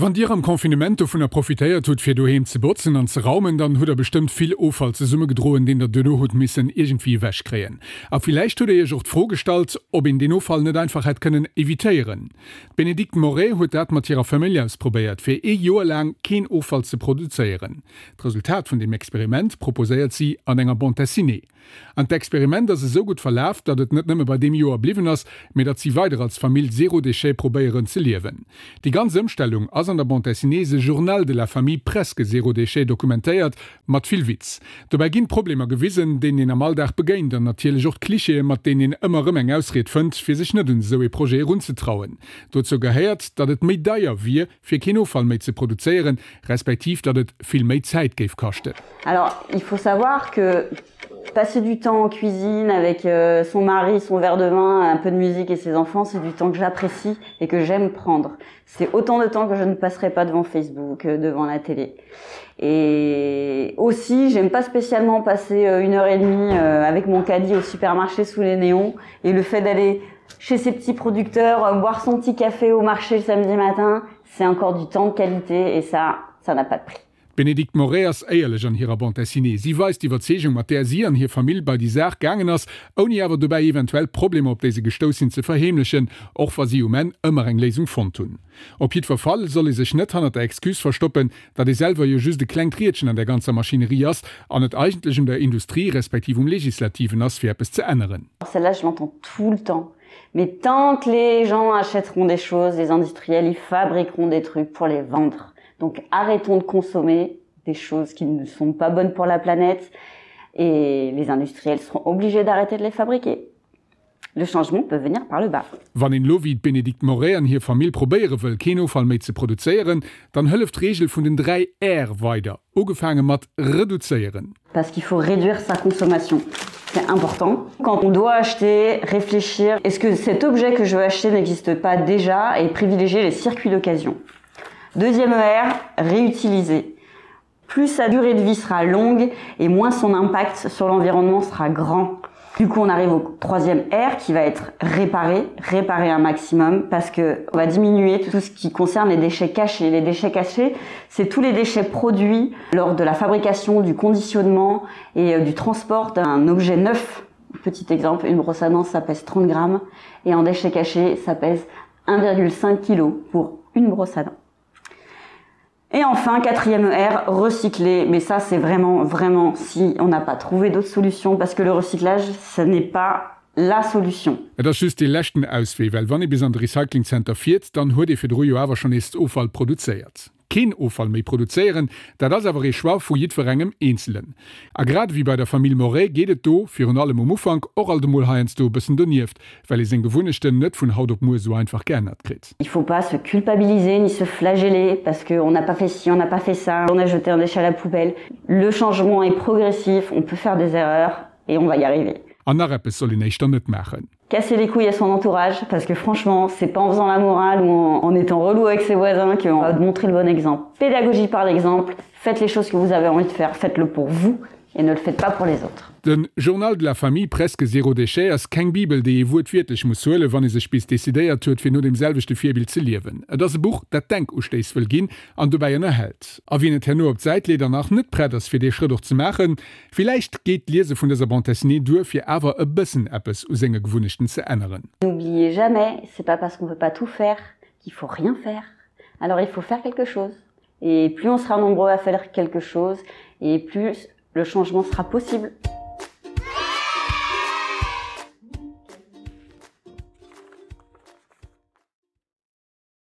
Wann Dir am Confinement dovunner profitéiert hutt, fir doheem ze botzen an ze raumen, dann hutt der bestëmmt vill Offall zesummegedroen, deen der duerno hutt missen iergendwéi ewech kréien. A villäicht hutt der Iech och d'Fro gestallt, ob een deen Offall net einfach hätt kënnen evitéieren. D'Bénédicte Moret huet dat mat hirer Famill ausprobéiert, fir ee Joer laang keen Offall ze produzéieren. D'Resultat vun deem Experiment proposéiert si an enger Bande dessinée. An d'Experiment ass esou gutt verlaf, datt et net nëmme bei deem Joer bliwwen ass, mee datt si weider als Famill zéro déchet probéieren ze liewen. Déi ganz Ëmstellung ass an der Bande dessinée The Journal de la famille presque zéro déchet dokumentéiert, mat vill Witz. Dobäi ginn d'Problemer gewisen, deenen een am Alldag begéint an natierlech och d'Clichéë mat deenen een ëmmer erëm eng Ausried fënnt, fir sech net un esou ee Projet erunzetrauen. Dozou gehéiert, datt et méi deier wier, fir keen Offall méi ze produzéieren, respektiv datt et vill méi Zäit géif kaschten. Alors, il faut savoir que passer du temps en cuisine avec euh, son mari, son verre de vin, un peu de musique et ses enfants, c'est du temps que j'apprécie et que j'aime prendre. C'est autant de temps que je ne passerai pas devant Facebook, euh, devant la télé. Et aussi, j'aime pas spécialement passer euh, une heure et demie avec mon caddie au supermarché sous les néons et le fait d'aller chez ses petits producteurs, euh, boire son petit café au marché le samedi matin, c'est encore du temps de qualité et ça, ça n'a pas de prix. D'Bénédicte Moret ass éierlech an hirer Bande dessinée. Si weist d'Iwwerzeegung, mat där si an hir Famill bei déi Saach gaangen ass, ouni awer dobäi eventuell Problemer, op déi se gestouss sinn, ze verheemlechen, och wa si um Enn ëmmer eng Léisung fonnt hunn. Op jiddwer Fall soll ee sech net hannert der Excuse verstoppen, datt ee selwer jo just e klengt Riedchen an där ganzer Maschinerie ass an et eigentlech un der Industrie respektiv um Legislativen ass, fir eppes ze änneren. Celle-là, je l'entends tout le temps. Mais tant que les gens achèteront des choses, les industriels, ils fabriqueront des trucs pour les vendre. Donc arrêtons de consommer des choses qui ne sont pas bonnes pour la planète et les industriels seront obligés d'arrêter de les fabriquer. Le changement peut venir par le bas. Wann een elo wéi d'Bénédicte Moret an hir Famill probéiere wëll keen Offall méi ze produzéieren, dann hëlleft d'Reegel vun den 3 R weider, ugefaange mat reduzéieren. Parce qu'il faut réduire sa consommation. C'est important. Quand on doit acheter, réfléchir, est-ce que cet objet que je veux acheter n'existe pas déjà et privilégier les circuits d'occasion. Deuxième R, réutiliser. Plus sa durée de vie sera longue et moins son impact sur l'environnement sera grand. Du coup, on arrive au troisième R qui va être réparé, réparer un maximum parce que on va diminuer tout ce qui concerne les déchets cachés. Les déchets cachés, c'est tous les déchets produits lors de la fabrication, du conditionnement et euh, du transport d'un objet neuf. Petit exemple, une brosse à dents, ça pèse 30 grammes et en déchets cachés, ça pèse 1,5 kg pour une brosse à dents. Et enfin, quatrième R, recycler. Mais ça, c'est vraiment, vraiment si on n'a pas trouvé d'autres solutions, parce que le recyclage, ce n'est pas la solution. Et ass just dee leschten Auswee, well wann ee bis an de Recyclingzenter fiert, dann huet ee virdru jo awer schonn nees Offall produzéiert. Keen Offall méi produzéieren, dat ass awer ee Choix vu jiddwerengem Eenzelen. A grad ewéi bei der Famill Moret geet et do, virun allem um Ufank, och alt emol heiansdo e bëssen donieft, well ee seng Gewunnechten net vun haut op muer esou einfach geännert kritt. Il faut pas se culpabiliser ni se flageller parce que on n'a pas fait ci, on n'a pas fait ça, on a jeté un déchet à la poubelle. Le changement est progressif, on peut faire des erreurs et on va y arriver. An nach eppes soll een éischter net maachen. Casser les couilles à son entourage parce que franchement, c'est pas en faisant la morale ou en, en étant relou avec ses voisins qu'on va montrer le bon exemple. Pédagogie par l'exemple, faites les choses que vous avez envie de faire, faites-le pour vous et ne le faites pas pour les autres. Den Journal de la famille presque zéro déchet ass keng Bibel, déi ee wuertwiertlech muss huelen, wann ee sech bis decidéiert huet, fir no deem selwechte Virbild ze liewen. Et ass e Buch, dat Denkustéiss wëll ginn an dobäi ënnerhält. A wien et herno op d'Säit leet an nach net prett ass, fir dee Schrëtt och ze maachen, villäicht geet d'Liese vun dëser Bande dessinée duer, fir awer e bëssen eppes u senge Gewunnechten ze änneren. N'oubliez jamais, c'est pas parce qu'on peut pas tout faire qu'il faut rien faire. Alors il faut faire quelque chose. Et plus on sera nombreux à faire quelque chose, et plus le changement sera possible.